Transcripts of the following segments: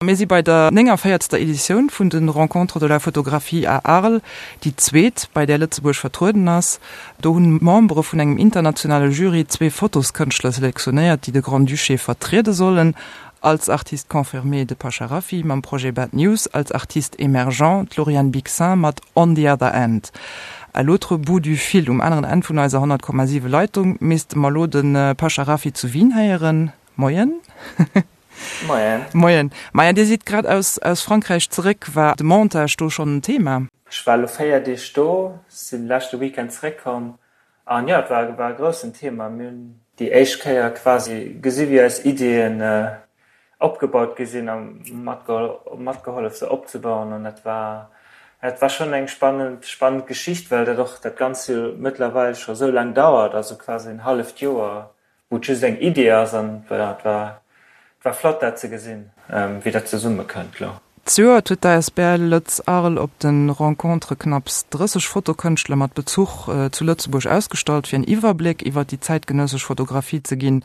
Mir si bei der 49. Editioun vun de Rencontres de la photographie à Arles, déi zweet, bei där Lëtzebuerg vertrueden ass. Do hunn Membere vun engem internationale Jury zwee Fotoskënschtler selektionéiert, déi de Grand-Duché vertriede sollen, als Artiste confirmé de Pasha Rafiy mam Projet Bad News, als Artiste émergent d'Lauriane Bixin mat On the other end. À l'autre bout du fil, um aneren Enn vun eiser 100,7 Leitung, misste mer elo de Pasha Rafiy zu Wien héieren. Moien. Moien. Moien. Maja, Dir sidd grad aus aus Frankräich zeréck. War de Montage do schonn en Thema? Ech war elo 4 Deeg do, sinn leschte Weekend zeréckkomm an jo, et war war e groussen Thema. Mir hunn déi éischt Kéier quasi gesi wéi eis Ideeën opgebaut gi sinn a matgehollef se opzebauen an dat war dat war schonn eng spannend spannend Geschicht, well dat och dat Ganzt jo mëttlerweil scho sou laang dauert, also quasi en halleft Joer wou et just eng Idee ass an voilà, et war et war flott dat ze gesinn, wéi dat zesumme kënnt lo. Zejoert huet d'ASBL Lëtz Arles op de Rencontres knapps 30 Fotokënschtler mat Bezuch zu Lëtzebuerg ausgestallt, fir en Iwwerbléck iwwer déi zäitgenëssesch Fotografie ze ginn.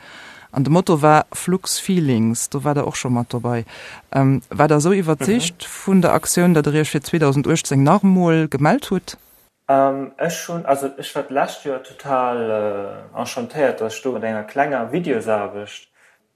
An de Motto war Flux Feelings. Do war der och scho mat dobei. War der esou iwwerzeegt vun der Aktioun, datt der iech fir 2018 nach emol gemellt hutt? Ech hunn, also ech war d'lescht Joer total enchantéiert, datt ech do mat enger klenger Videosaarbecht,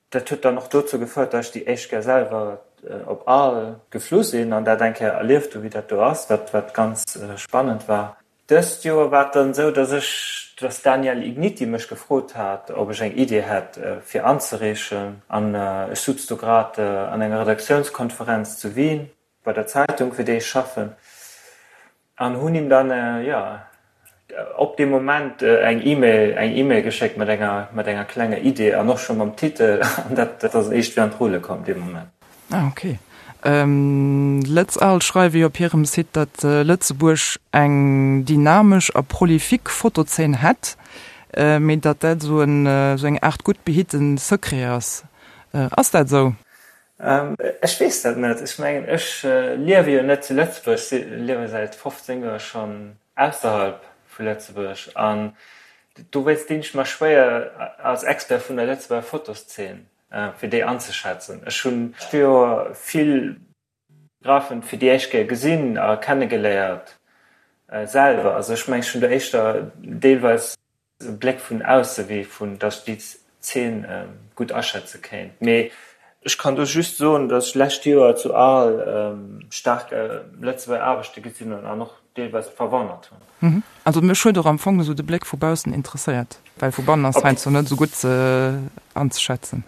dat huet dann och dozou gefouert, datt ech déi éischt Kéier selwer op Arles geflu sinn an dat eng Kéier erlieft hu wéi dat do ass, wat wat ganz spannend war. Dëst Joer war et dann esou, datt ech, datt d'Danièle Igniti mech gefrot hat, ob ech eng Idee hätt fir anzereechen an ech sutz do grad an enger Redaktiounskonferenz zu Wien bei der Zeitung, fir déi ech schaffen, an hunn him dann, jo, op dee Moment eng E-Mail, eng E-Mail geschéckt mat enger, mat enger klenger Idee an och scho mam Titel, an dat ass éischt wéi an d'Rulle komm dee Moment. Ah, ok. Lëtz Arles schreiwe jo op hirem Site, datt Lëtzebuerg eng dynamesch a prolifique Fotozeen hätt, mee datt dat esou en, esou eng Aart gutt behitte Secret ass. Ass dat esou? Ech weess dat net. Ech mengen, ech liewe jo net zu Lëtzebuerg, ech liewe säit 15 Joer schonn ausserhalb vu Lëtzebuerg an dowéinst dinn ech mer schwéier als Expert vun der Lëtzebuerger Fotoszeen, fir déi anzeschätzen. Ech hunn d'Joer vill Fotografen fir déi éischt Kéier gesinn a kennegeléiert selwer. Also ech mengen, ech hunn do éischter deelweis e Bléck vun ausse wéi vun datt ech déi Zeen gutt aschätze kéint. Mee ech kann do just soen, datt ech lescht Joer zu Arles staark Lëtzebuerger Aarbechte gesinn hunn an och deelweis verwonnert hunn. Also mech huet och am Fong esou de Bléck vu baussen interesséiert, well vu bannen ass heiansdo net esou gutt anzeschätzen.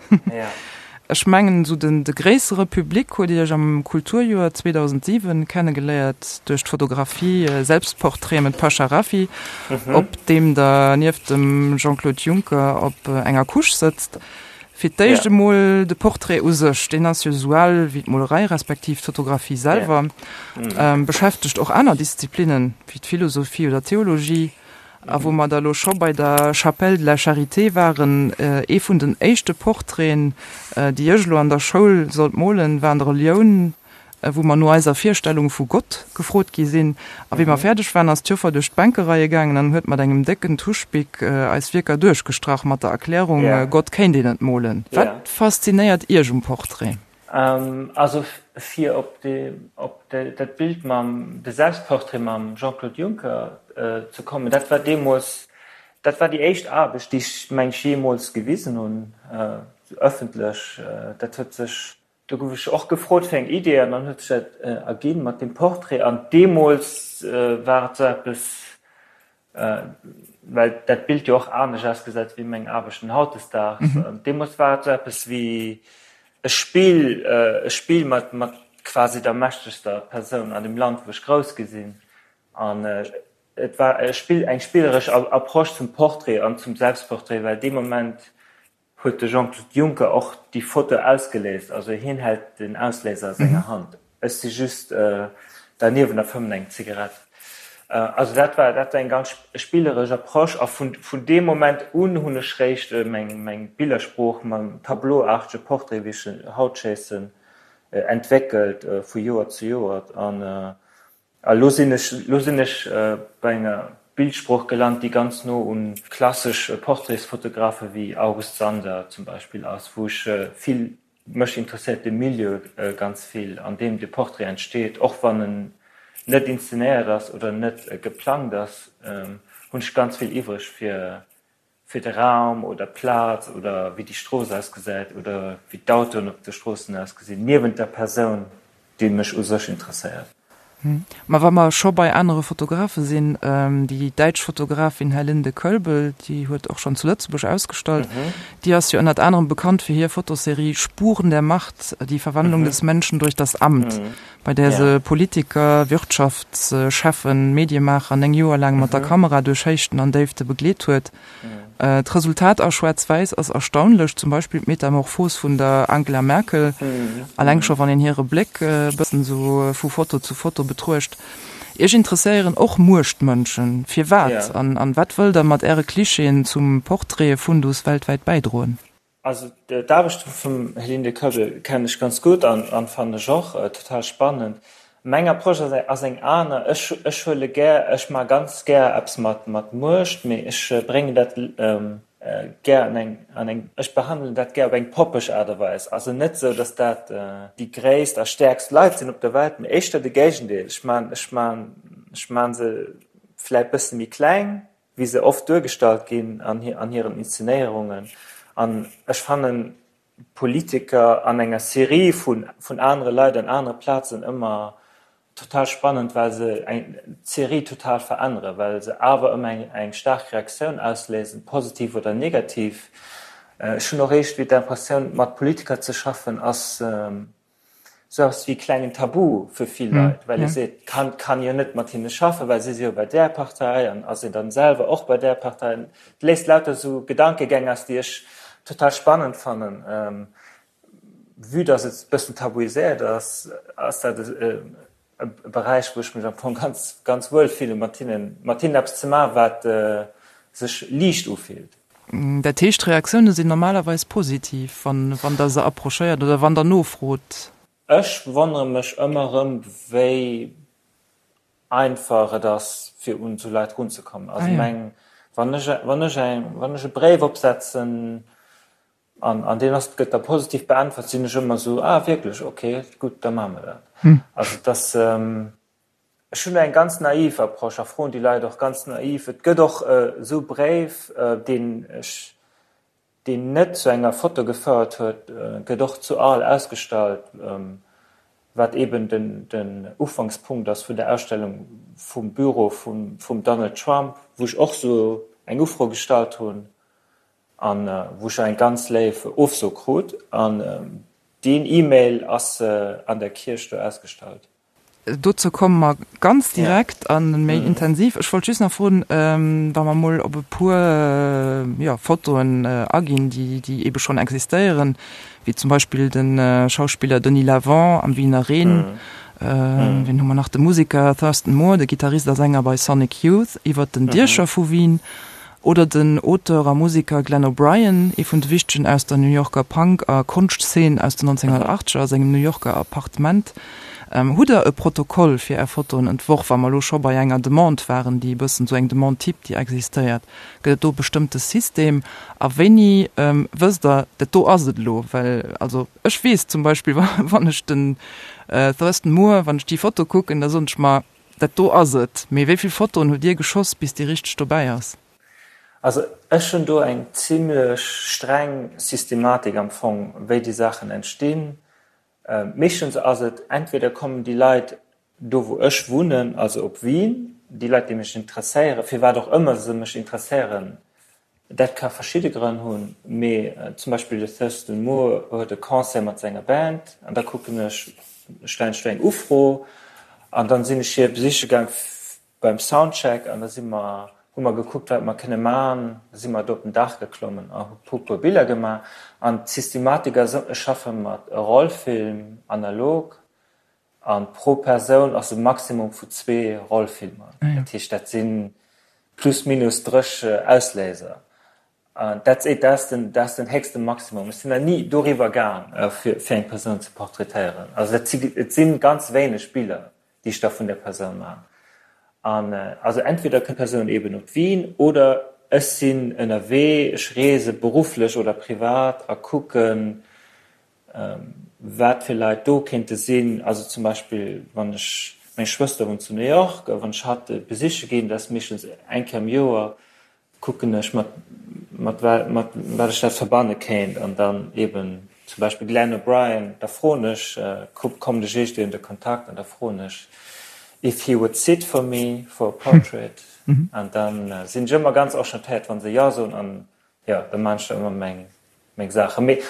Ech mengen esou den de gréissere Public huet Iech am Kulturjoer 2007 kennegeléiert duerch d'Fotografie Selbstportrait mit Pasha Rafiy, op deem Der nieft dem Jean-Claude Juncker op enger Couche sëtzt. Fir d'éischt emol de Portrait u sech, deen ass jo esou al wéi d'Molerei respektiv d'Fotografie selwer, beschäftegt och aner Disziplinnen wéi d'Philosophie oder d'Theologie. A wou mer da lo scho bei der Chapelle de la Charité waren, ee vun den éischte Portraiten, déi ech elo an der Schoul sollt molen, war an der Relioun, wou mer no eiser Virstellung vu Gott gefrot gi sinn. A wéi mer fäerdeg waren, ass d'Joffer duerch d'Bänkereie gaangen an huet mat engem décken Tuschbic eis Wierker duerchgestrach mat der Erklärung, Gott kéint een net molen. Wat faszinéiert Iech um Portrait? Also fir op op dat Bild mam, de Selbstportrait mam Jean-Claude Juncker ze kommen, dat war deemools, dat war déi éischt Aarbecht, déi ech meng ech jeemools gewisen hunn, ëffentlech. Dat huet sech, do gouf ech och gefrot fir eng Idee an dann huet sech dat erginn mat deem Portrait. An deemools war et esou eppes, well dat Bild jo och anescht ausgesäit wéi meng Aarbechten hautdesdaags. An deemools war et sou eppes wéi e Spill, e Spill mat, mat quasi der mächtegster Persoun an dem Land, wou ech grouss gi sinn. An et war e Spill, eng spilleresch Approche zum Portrait an zum Selbstportrait, well dee Moment huet de Jean-Claude Juncker och déi Foto ausgeléist, also hien hält den Ausléiser a senger Hand, ech si just derniewent a fëmmen eng Zigarett. Also dat war dat war eng ganz spilleresch Approche a vun vun deem Moment un hunn ech réischt meng meng Billersprooch mam tableauartege Portrait, wéi ech en haut schéissen, entwéckelt vu Joer zu Joer an A lo sinn ech, lo sinn ech bei enger Bildsprooch gelant, déi ganz no un klassesch Portraitsfotografe wéi August Sander zum Beispill ass, wou ech vill. Mech interesséiert de Milieu ganz vill, an deem de Portrait entsteet. Och wann en net inszenéiert ass oder net geplangt ass, hunn ech ganz vill iwwreg fir fir de Raum oder d'Plaz oder wéi déi Strooss ausgesäit oder wéi d'Autoen op de Stroossen ausgesinn, niewent der Persoun, déi mech u sech interesséiert. Ma wa mer scho bei anere Fotografe sinn, déi däitsch Fotografin Herlinde Koelbel, déi huet och schonn zu Lëtzebuerg ausgestallt, déi ass jo ënnert anerem bekannt fir hir Fotoserie Spuren der Macht, die Verwandlung des Menschen durch das Amt, bei där se Politiker, Wirtschaftscheffen, Mediemaacher 9 Joer laang mat der Kamera duerch Héichten an Déifte begleet huet. D'Resultat a Schwaarz-Wäiss ass erstaunlech, zum Beispill d'Metamorphos vun der Angela Merkel, alleng scho wann een hire Bléck e bëssen esou vu Foto zu Foto betruecht. Iech interesséieren och Muechtmënschen. Firwat? An wat wëllt der mat äre Klischeeën zum Portraite-Fundus weltwäit bäidroen? Also d'Aarbecht vum Helene Koeppel kennen ech ganz gutt an fannen ech och total spannend. Meng Approche ass eng aner, ech ech huele gär, ech maache ganz gär eppes mat mat Muecht, mee ech bréngen dat gär an eng an eng, ech behandelen dat gär op eng poppeg Aart a Weis. Also net esou, datt dat déi gréisst a stäerkst Leit sinn op der Welt, mee éischter de Géigendeel. Ech maan ech maan ech maan se vläit bësse méi kleng, wéi se oft duergestallt ginn an hiren Inszenéierungen. An ech fannen Politiker an enger Serie vun anere Leit an anere Plazen ëmmer total spannend, well se d'Serie total veränneren, well se awer ëmmer eng staark Reaktioun ausléisen, positiv oder negativ. Ech hunn och iergendwéi d'Impressioun, mat Politiker ze schaffen ass Sou eppes wéi e klengen Tabu fir vill Leit, well ee seet, kann, kann jo net mat hinne schaffen, well si si jo bei där Partei an ass een dann selwer och bei där Partei. Et léist lauter sou Gedankegäng aus, déi ech total spannend fannen. Vue dass et e bëssen tabuiséiert ass, ass dat e Beräich, wou ech mech am Fong ganz, ganz wuel fillen, mat hinnen, mat hinnen eppes ze maachen, wat sech liicht ufillt. Dat heescht, d'Reaktioune sinn normalerweis positiv, wann wann Der se approchéiert oder wann Der nofrot? Ech wonnere mech ëmmer erëm, wéi einfach et ass, fir un esou Leit erunzekommen. Also meng, wann ech, wann ech eng, wann ech e Bréif opsetzen an, an deen ass, gëtt da positiv beäntwert, sinn ech ëmmer esou, ah wierklech, okay, gutt, da maache mer dat. Also et ass. Ech hunn eng ganz naiv Approche a froen déi Leit och ganz naiv. Et gëtt och esou Bréif, deen ech, deen net zu enger Foto gefouert huet, gëtt och zu Arles ausgestallt, wat eben den, den Ufankspunkt ass vun der Ausstellung vum Büro vum, vum Donald Trump, wou ech och esou eng Ufro gestallt hunn an wou ech eng ganz léif Ofso krut. An deen E-Mail ass an der Kierch do ausgestallt. Dozou komme mer ganz direkt a méi intensiv. Ech wollt just nach froen, wa mer mol op e puer, jo, Fotoen aginn, déi, déi eebe schonn existéieren, wéi zum Beispill de Schauspiller Denis Lavant am Wiener Reen, wien hu mer nach, de Museker Thurston Moore, de Gittarist a Sänger bei Sonic Youth, iwwert den Diecher vu Wien, Oder den Auteur a Museker Glenn O'Brien, ee vun de wichtegen aus der New Yorker Punk a Konschtzeen aus den 1980er, a sengem New Yorker Appartement. Hutt der e Protokoll fir är Fotoen entworf, wa mer elo scho bei enger Demande waren, déi e bëssen esou eng Demande type, déi existéiert? Gëtt et do e bestëmmte System? A wéini wësst der, dat do ass et elo? Well also ech weess zum Beispill, wann ech den Thurston Moore, wann ech déi Foto kucken, da soen ech mer, Dat do ass et. Mee wéi vill Fotoen hutt Dir geschoss, bis déi richteg dobäi ass? Also ech hunn do eng zimlech streng Systematik am Fong, wéi déi Saachen entstinn. Meeschtens ass et, entweder kommen déi Leit do wou ech wunnen, also op Wien, déi Leit déi mech interesséieren, firwat och ëmmer se mech interesséieren, Dat ka verschidde Grënn hunn, mee zum Beispill de Thurston Moore huet e Concert mat senger Band an da kucken ech, stellen ech do eng Ufro an dann sinn ech hie besiche gaang beim Soundcheck an da si mer, hu mer gekuckt wat mer kënne man, da si mer do op den Daach geklommen a hu puer Biller gemaach an d'Systematik ass, ech schaffe mat Rollfilm analog An pro Persoun ass e Maximum vu zwee Rollfilmer. Dat heescht, dat si plus minus 30 Ausléiser. An that's it, dat ass den, dat ass den héchste Maximum. Ech sinn nach ni doriwwer gaang, fir, fir eng Persoun ze portraitéieren. Also dat si, et si ganz wéineg Biller, déi ech da vun der Persoun maachen. An also entweder kënnt d'Persoun eeben op Wien oder ech sinn ënnerwee, ech reese berufflech oder privat a kucken. wat fir Leit do kéinte sinn. Also zum Beispill wann ech, meng Schwëster wunnt zu New York, a wann ech hatt besiche ginn, dat ass meeschtens eng Kéier am Joer, kucken ech mat mat mat wat ech dat verbanne kéint an dann eben zum Beispill Glenn O'Brien, da froen ech, kommen ech iergendwéi an de Kontakt an da froen ech if he would sit for me for a portrait an dann sinn ech ëmmer ganz enchantéiert wann se jo soen an jo da maan ech da ëmmer meng meng Saachen. Mee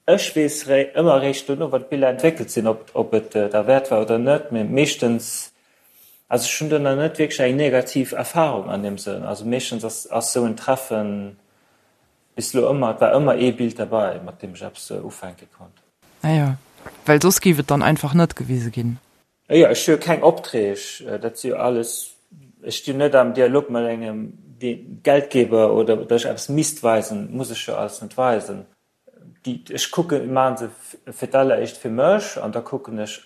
Ech weess ëmmer eréischt dono, wann d'Biller entwéckelt sinn, ob et derwäert war oder net. Mee meeschtens, also ech hunn do nach net wierklech eng negativ Erfarung an deem Sënn. Also meeschtens ass esou en Treffen bis elo ëmmer, et war ëmmer ee Bild derbei, mat deem ech eppes ufänke konnt. Ah jo, well soss géif et dann einfach net gewise ginn. Jo, ech hu jo keng Opträg, dat si jo alles, ech stinn net am Dialog mat engem Geldgeber oder datt ech eppes misst weisen, muss ech jo alles net weisen. Déi, ech kucken, maache se fir d'alleréischt fir mech an da kucken ech,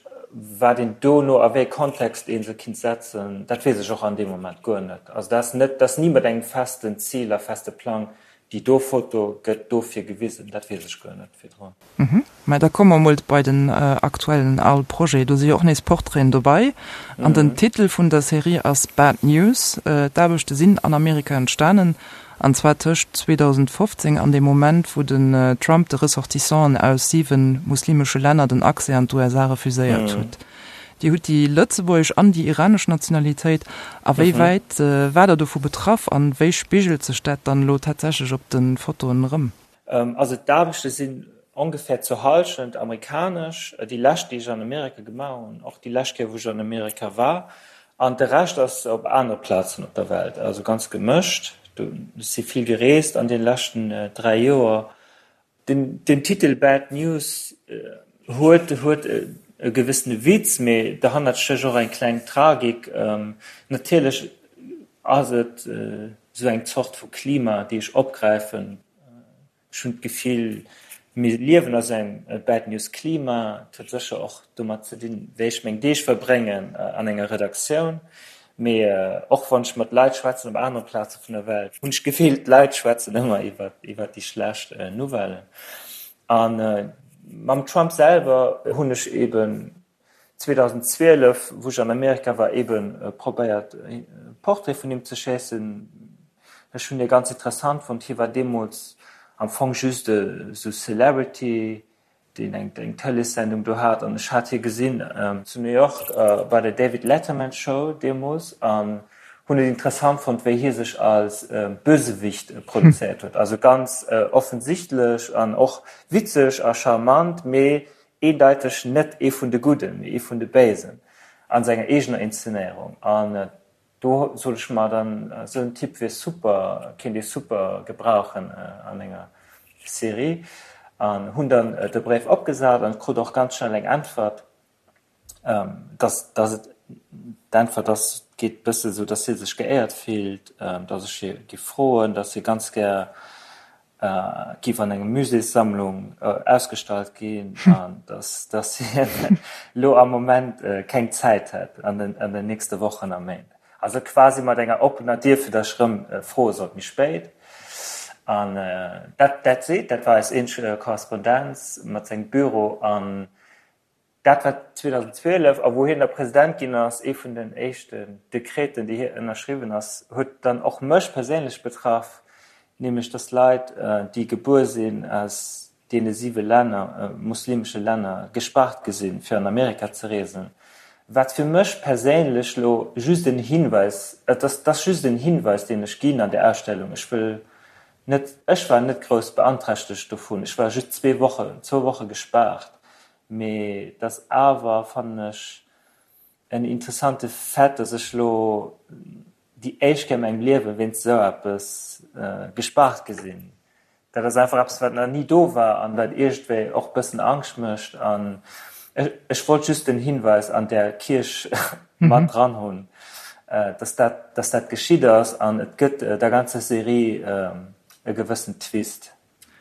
wat een dono, a wéi e Kontext ee se kinnt setzen. Dat weess ech och an deem Moment guer net. Also dat ass net, dat ass ni mat engem festen Zil a feste Plang, déi do Foto gëtt dofir gewisen. Dat weess ech guer net virdrun. Mä da komme mer mol bei den aktuellen Arles Projet. Do si jo och nees Portraiten dobei. An den Titel vun der Serie ass Bad News. D'Aarbechte sinn an Amerika entstanen. An zwar tëscht 2015 an dem Moment, wou den Trump de Ressortissanten aus 7 muslimesche Länner den Accès an d'USA refuséiert huet. Dir hutt déi lëtzebuergesch an déi iranesch Nationalitéit. A wéi wäit war Der dovu betraff an wéi spigelt sech dat dann elo tatsächlech op de Fotoen erëm? Also d'Aarbechte sinn ongefähr zur Hallschent amerikanesch, déi lescht déi ech an Amerika gemaach hunn, och déi lescht Kéier wou ech an Amerika war, an de Rescht ass op anere Plazen op der Welt, also ganz gemëscht. Ech si vill gereest an deene leschten 3 Joer. Den Titel Bad News huet huet e gewëssene Witz, mee derhannert stécht och eng kleng Tragik. Natierlech ass et esou eng Zort vu Klima, déi ech opgräifen. Ech hunn d'Gefill, mir liewen a sou engem Bad News Klima. Et huet sécher och domat ze dinn, wéi ech meng Deeg verbréngen an enger Redaktioun. Mee och wann ech mat Leit schwätzen op anere Plaze vun der Welt, hunn ech d'Gefill, d'Leit schwätzen ëmmer iwwer déi schlecht Nouvellen. A mam Trump selwer hunn ech eeben 2012, wou ech an Amerika war, eben probéiert e Portrait vun him ze schéissen. Ech hunn hie ganz interessant fonnt. Hie war deemools am Fong just esou Celebrity, deen eng eng Tëleessendung do hat. An ech hat hie gesinn zu New York bei der David Letterman Show deemools an hunn et interessant fonnt, wéi hie sech als Bösewicht produzéiert huet. Also ganz offensichtlech an och witzeg a charmant, mee eendeiteg net ee vun de Gudden, mee ee vun de Béisen a senger eegener Inszenéierung. An do sot ech mer dann, esou en Typ wier super, kéint ee super gebrauchen an enger Serie. An hunn dann de Bréif opgesat an krut och ganz schnell eng Äntwert, dass, dass et, d'Äntwert ass, geet bësse sou, dass hie sech geéiert fillt, dass ech hie giff froen, dass hie ganz gär giff an engem Muséessammlung ausgestallt ginn an dass dass hien elo am Moment keng Zäit hätt an den an den nächste Wochen a Méint. Also quasi mat enger oppener Dier fir dass ech erëm froe sollt méi spéit. An dat dat seet, dat war eis eenzeg Korrespondenz mat sengem Büro an Dat war 2012, a wou hien da President ginn ass, ee vun den éischten Dekreten, déi hie ënnerschriwwen ass, huet dann och mech perséinlech betraff, nämlech datt Leit, déi gebuer sinn aus deene siwe Länner, muslimesche Länner, gespaart gi sinn, fir an Amerika ze reesen. Wat fir mech perséinlech elo just en Hinweis, et ass, et ass just en Hinweis, deen ech ginn an där Ausstellung, ech wëll net, ech war net grouss beanträchtegt dovun, ech war just zwee Wochen, zwou Woche gespaart, Mee et ass awer, fannen ech, en interessante Fait, dass ech lo déi éischt Kéier a mengem Liewe wéinst esou eppes gespaart gi sinn. Dat ass einfach eppes, wat nach ni do war an wat iergendwéi och e bëssen Angscht mécht. An ech wollt just den Hinweis an där Kierch mat dran hunn, dass dat, dass dat geschitt ass an et gëtt der ganzer Serie e gewëssen Twist.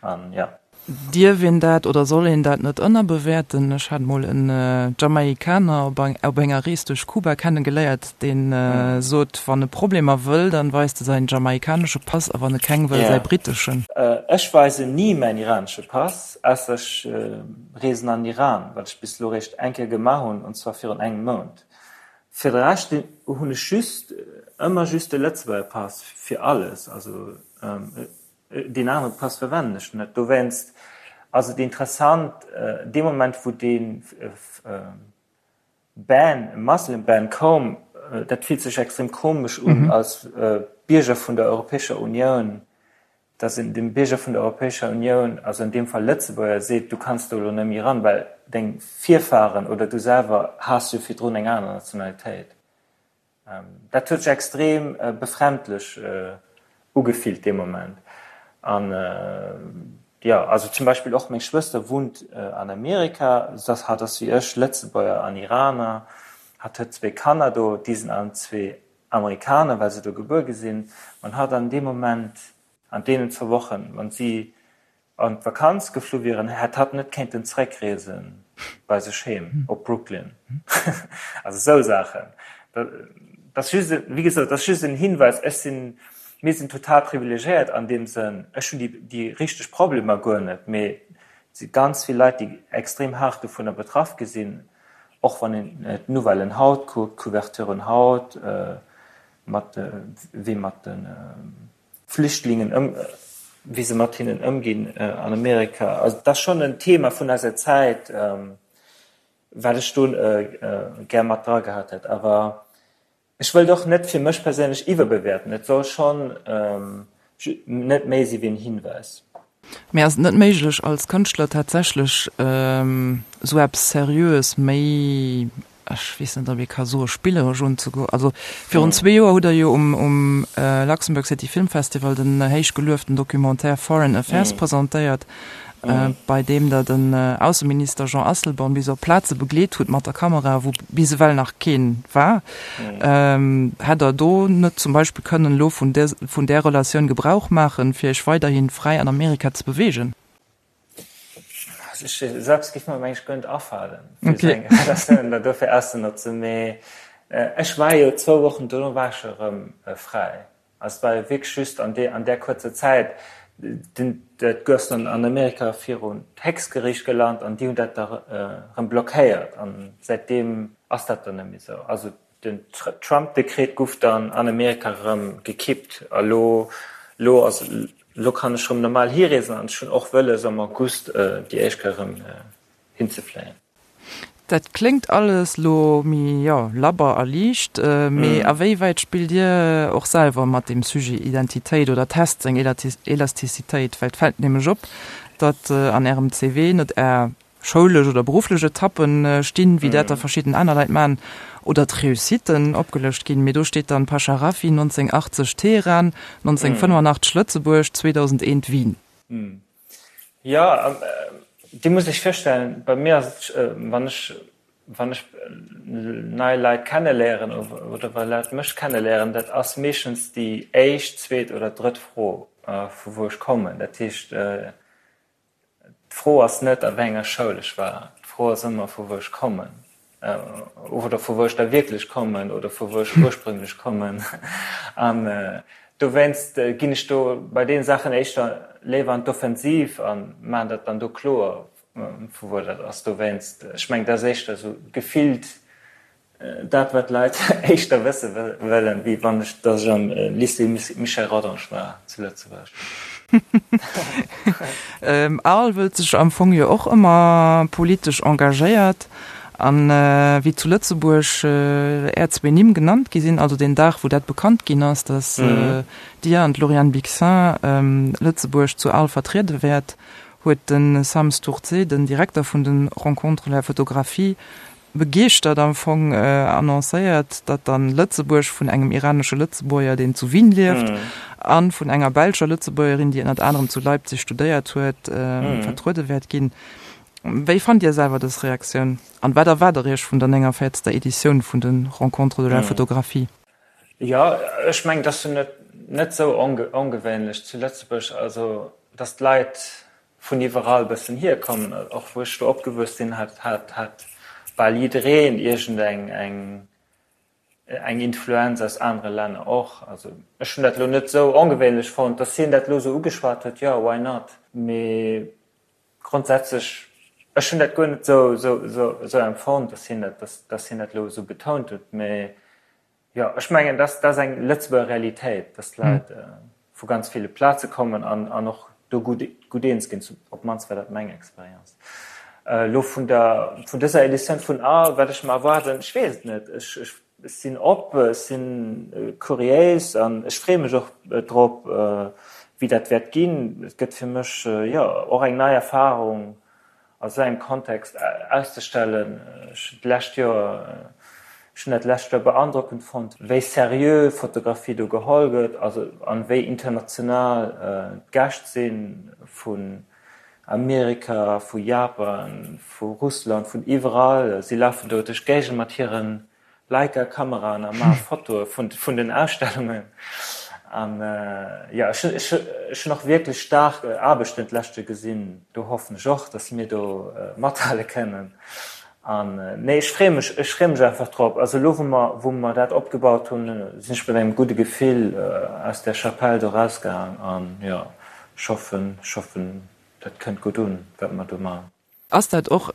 An jo. Dierf een dat oder soll een dat net ënnerbewäerten? Ech hat mol en Jamaikaner op enger Rees duerch Kuba kennegeléiert, deen sot, wann e Problemer wëll, dann weist e säin jamaikanesche Pass a wann e keng wëll, säi britteschen. Ech weisen ni mäin iranesche Pass, ausser ech reesen an den Iran, wat ech bis elo réischt eng Kéier gemaach hunn, und zwar virun engem Mount. Fir de Rescht hunn ech just ëmmer just de Lëtzebuerger Pass fir alles. Also Deen anere Pass verwennen ech net. Dowéinst ass et interessant, dee Moment wou dee Ban, Muslim Ban koum, dat fillt sech extrem komesch un als Bierger vun der Europäescher Unioun, datt een dem Bierger vun der Europäescher Unioun, also an deem Fall Lëtzebuerger, seet, du kanns do elo net méi eran, well deng Virfahren oder du selwer has jo virdrun eng aner Nationalitéit. Dat huet sech extrem befremdlech ugefillt dee Moment. An jo, also zum Beispill och meng Schwëster wunnt an Amerika, hatt ass wéi ech Lëtzebuerger an Iraner, hatt huet zwéi Kanner do, déi sinn allen zwee Amerikaner, well se do gebuer gi sinn. Wann hatt an deem Moment, an deenen zwou Wochen, wann si an d'Vakanz geflu wieren, hätt hatt net kéinten zeréckreesen bei sech heem op Brooklyn. Also esou Saachen. Dat ass just, wéi gesot, dat ass just en Hinweis. Ech sinn, mir sinn total privilegiéiert an deem Sënn. Ech hunn déi, déi richteg Problemer guer net, mee et si ganz vill Leit, déi extrem haart dovunner betraff gi sinn, och wann een d'Nouvellen haut kuckt, d'Couverturen haut, mat wéi mat de Flüchtlingen ëm, wéi se mat hinnen ëmginn an Amerika. Also dat ass schonn en Thema vun eiser Zäit, wat ech do gär mat dra gehat hätt. Awer ech wëllt och net fir mech perséinlech iwwerbewäerten. Et soll schonn net méi si wéi en Hinweis. Mee ass et net méiglech als Kënschtler tatsächlech esou eppes Seriöes méi, ech weess net ob ee ka soe spilleresch unzegoen? Also virun zwee Joer hutt Der jo um um Luxembourg City Film Festival den héich gelueften Documentaire Foreign Affairs presentéiert, bei deem Der den Ausseminister Jean Asselborn bis op Plaze begleet hutt mat der Kamera, wou bis ewell nach keen war. Hätt Der do net zum Beispill kënnen elo vun där, vun där Relatioun Gebrauch maachen, fir Iech weiderhi fräi an Amerika ze beweegen? Also ech selbst géif mer mengen ech guer net afalen, fir esou eng Relatioun da dofir auszenotzen. Mee ech war jo zwou Wochen dono war ech jo erëm fräi. Also et war jo wierklech just an deer, an där kuerzer Zäit, den, dat gouf dann an Amerika virun d'Héchstgeriicht gelant an déi hunn dat da erëm blockéiert an säitdeem ass dat dann net méi esou. Also den Trump-Dekret guff dann an Amerika erëm gekippt a lo, lo ass, lo kann ech erëm normal hireesen an ech hunn och wëlles am August déi éischt Kéier erëm hinzefléien. Dat kléngt alles lo méi, jo, labber a liicht, mee a wéi wäit spillt Dir och selwer mat deem Sujet Identitéit oder test seng Elastizitéit? Well et fält nämlech op, datt an Ärem CV net Är schoulesch oder berufflech Etappen stinn, wéi dat da verschidden aner Leit maachen, oder d'Reussitten opgelëscht ginn, mee do steet dann Pasha Rafiy, 1980 Teheran, 1985 Lëtzebuerg, 2001 Wien. Jo, Dir musst Iech virstellen, bei mir ass et, wann ech, wann ech nei Leit kenneléieren oder wa Leit mech kenneléieren, dat ass meeschtens déi éischt, zweet oder drëtt Fro, vu wou ech kommen. Dat heescht, d'Fro ass net, a wéi enger Schoul ech war, d'Fro ass ëmmer, vu wou ech kommen. Oder vu wou ech da wierklech kommen oder vu wou ech ursprünglech kommen. An dowéinst ginn ech do bei deene Saachen éischter léiwer an d'Offensiv a maachen dat dann do kloer, vu wou dat ass. Dowéinst, ech mengen, dat ass éischter esou gefillt Dat wat d'Leit éischter wësse wëllen, wéi wann ech, datt ech am Lycée Michel Rodange war zu Lëtzebuerg. Arles wëllt sech am Fong jo och ëmmer politesch engagéiert. An wéi zu Lëtzebuerg Är zwee Nimm genannt gi sinn, also deen Dag wou dat bekannt ginn ass, datt Dir an d'Lauriane Bixin Lëtzebuerg zu Arles vertriede wäert, huet de Sam Stourdzé, den Direkter vun de Rencontres de la Photographie, begeeschtert am Fong annoncéiert, datt dann Lëtzebuerg vun engem iranesche Lëtzebuerger, deen zu Wien lieft, a vun enger belscher Lëtzebuergerin, déi ënnert anerem zu Leipzig studéiert huet, vertruede wäert ginn. Wéi fannt Dir selwer dës Reaktioun an wat erwaart Der Iech vun der 49. Editioun vun de Rencontres de la Photographie? Jo, ech mengen, et ass jo net net esou ongewéinlech zu Lëtzebuerg, also datt d'Leit. Vun iwwerall bëssen hierkommen. Och wou ech do opgewuess sinn, hat hat hat bal jiddereen iergend eng eng eng Influenz aus anere Länner och. Also ech hunn dat elo net esou ongewéinlech fonnt, dass hien dat elo esou ugeschwat huet, jo, why not? Mee grondsätzlech, ech hunn dat guer net esou esou esou esou empfonnt, dass hien dat dass dass hien dat elo esou betount huet. Mee Jo, ech mengen, dat ass eng Lëtzebuerger Realitéit, dass d'Leit vu ganz ville Plaze kommen an och do gutt eens ginn. Op d'mannst war dat meng Experience. Elo vun der, vun dëser Editioun vun A, wat ech mer erwaarden, ech weess et net. Ech sinn op, ech si kuriéis an ech freeë mech och drop, wéi dat wäert ginn. Et gëtt fir mech, jo, och eng nei Erfarung, a sou engem Kontext auszestellen. Ech hunn d'lescht Joer, ech hunn dat d'lescht Joer beandrockend fonnt, wéi seriö Fotografie do geholl gëtt, also an wéi international d'Gäscht sinn, vun Amerika, vu Japan, vu Russland, vun iwwerall. Si lafen do duerch d'Géigend mat hiren Leica-Kameraen a maache Fotoe vun den Ausstellungen. An jo, ech hunn och wierklech staark Aarbechten d'leschte gesinn. Do hoffen ech och, datt mir do mathale kënnen. An nee, ech freeë mech, ech freeë mech einfach drop. Also elo, wou mer, wou mer dat opgebaut hunn, sinn ech mat engem gudde Gefill aus där Chapelle do erausgaang. An jo, ech hoffen, ech hoffen, dat kënnt gutt un, wat mer do maachen. Ass dat och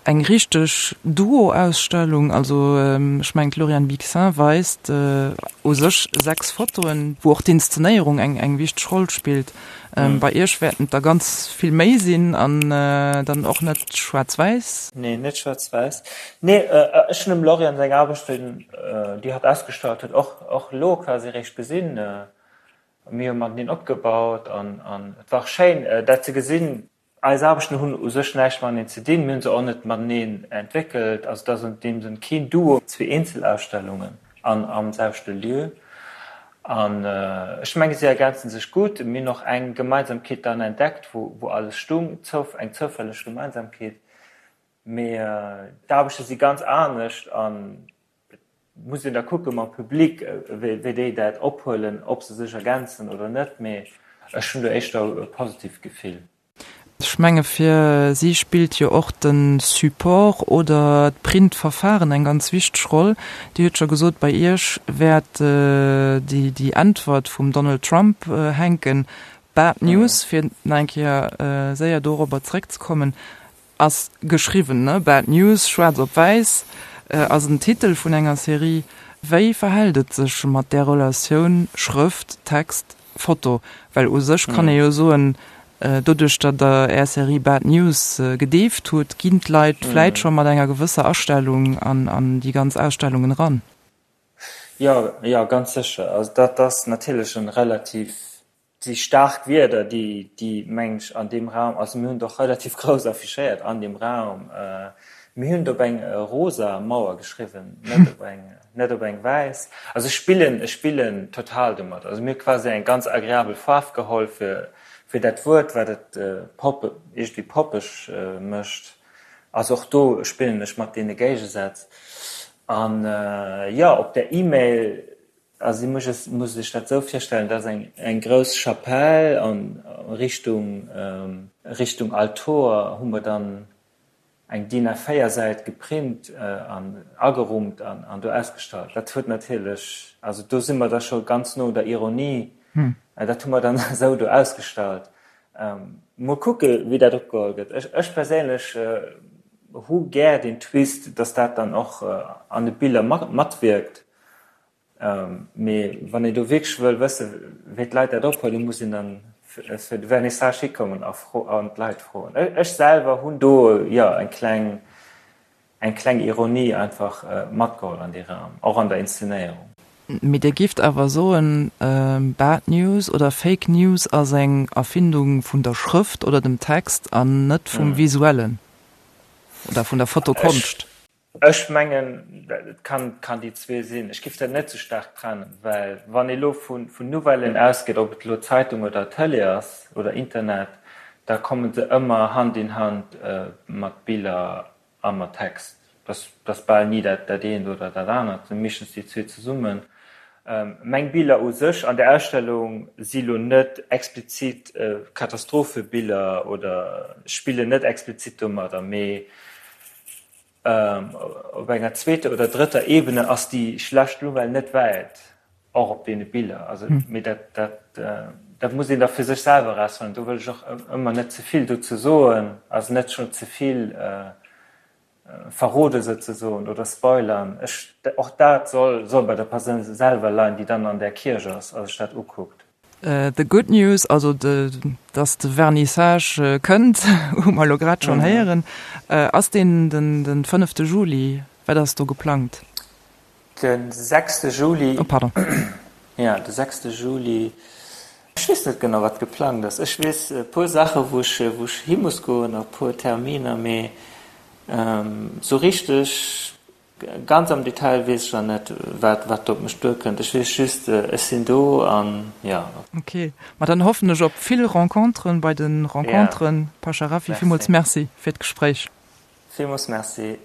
eng richteg Duo-Ausstellung? Also ech mengen d'Lauriane Bixin weist u sech 6 Fotoen, wou och d'Inszenéierung eng eng wichteg Roll spillt. Bei Iech wäerten et der ganz vill méi sinn an dann och net schwaarz-wäiss. Nee, net schwaarz-wäiss. Nee, ech hunn dem Lauriane seng Aarbechten, déi hatt ausgestallt huet, och och elo quasi eréischt gesinn. Mir hu mateneen opgebaut an et war och schéin dat ze gesinn. Eis Aarbechten hunn u sech näischt mateneen ze dinn, mir hunn se och net mateneen entwéckelt. Also et ass an deem Sënn keen Duo, zwee Eenzelausstellungen an am selwechte Lieu. An ech menge si ergänze sech gutt. Mir hunn och eng Gemeinsamkeet dann entdeckt, wou alles stung, eng zoufälleg Gemeinsamkeet. Mee d'Aarbechte si ganz anescht an et muss een da kucke mam Public, wéi déi dat ophuelen, ob se sech ergänzen oder net. Mee ech hunn do éischter e positiivt Gefill. Ech menge fir si spillt jo och de Support oder d'Printverfahren eng ganz wichteg Roll. Dir hutt scho gesot, bei Iech wäert déi Äntwert vum Donald Trump hänken. Bad News, fir nach eng Kéier séier dorobber zeréckzekommen, Ass geschriwwen, ne? Bad News, schwaarz op wäiss, ass en Titel vun enger Serie. Wéi verhält et sech mat där Relatioun Schrëft, Text, Foto? Well u sech kann ee jo soen, doduerch datt der är Serie Bad News gedeeft hutt, ginn d'Leit vläit scho mat enger gewësser Astellung an déi ganz Ausstellungen eran. Jo, jo, ganz sécher. Also dat ass natierlech e relativ Et si staark Wierder, déi, déi, mengen ech, an deem Raum, also mir hunn et och relativ grouss affichéiert an deem Raum, mir hunn et op eng rosa Mauer geschriwwen, net op eng, net op eng wäiss. Also ech spillen, ech spillen total domat. Also mir hu quasi eng ganz agreabel Faarf geholl fir, fir dat Wuert, wat et pop, iergendwéi poppeg mécht. Also och do spillen ech mat deene Géigesätz. An, jo, op der E-Mail, Also si muss muss sech dat esou virstellen, dat ass eng eng grouss Chapelle an Richtung Richtung Altor hu mer dann eng DIN A4 Säit geprint an agerummt an an do ausgestallt. Dat huet natierlech, also do si mer da scho ganz no un der Ironie, dat hu mer dann esou do ausgestallt. Mol kucke wéi dat opgeholl gëtt. Ech ech perséinlech hu gär deen Twist, datt dat dann och an de Biller matwierkt. Mee wann een do wierklech wëll wëssen, wéi d'Leit dat ophuelen, muss een dann fir de Vernissage hikommen a an d'Leit froen. Ech selwer hunn do, jo, eng kleng, eng kleng Ironie einfach matgeholl an dee Raum, och an der Inszenéierung. Mee Dir gifft awer soen, Bad News oder Fake News ass eng Erfindung vun der Schrëft oder dem Text an net vum Visuellen oder vun der Fotokonscht? Ech mengen, et kann, kann déi zwee sinn. Ech giff dat net sou staark trennen, well wann ee lo vu, vun Nouvellen ausgeet, ob et elo Zeitung oder Tëlee ass oder Internet, da komme se ëmmer Hand in Hand mat Biller a mat Text. Dat ass bal ni dat, dat eent oder dat anert, et sinn meeschtens déi zwee zesummen. Meng Biller u sech an der Ausstellung si lo net explizit Katastrophebiller oder spillen net explizit domadder, mee op enger zweeter oder drëtter Ebene ass déi schlecht Nouvelle net wäit, och op deene Biller. Also, mee dat, dat, dat muss een da fir sech selwer erausfannen. Do wëll ech och ëmmer net ze vill dozou soen, also net schonn ze vill verrode souzesoen oder spoilern. Ech, och dat soll, soll bei der Persoun selwer leien, déi dann an där Kierch ass a sech dat ukuckt. The good news, also dass de Vernissage kënnt, hu mer elo grad schonn héieren. Ass deen den fënnefte Juli? Wat ass do geplangt? De sechste Juli. Oh pardon. Jo, de sechste Juli. Ech weess net genau, wat geplangt ass. Ech weess e puer Saache wou ech, wou ech hi muss goen a puer Terminer, mee esou richteg ganz am Detail weess ech nach net, wat, wat do op mech duerkënnt. Ech weess just, ech sinn do an jo. Ok, ma dann hoffen ech op vill Renconteren bei de Renconteren. Pasha Rafi, villmools Merci fir d'Gespréich. Villmools Merci.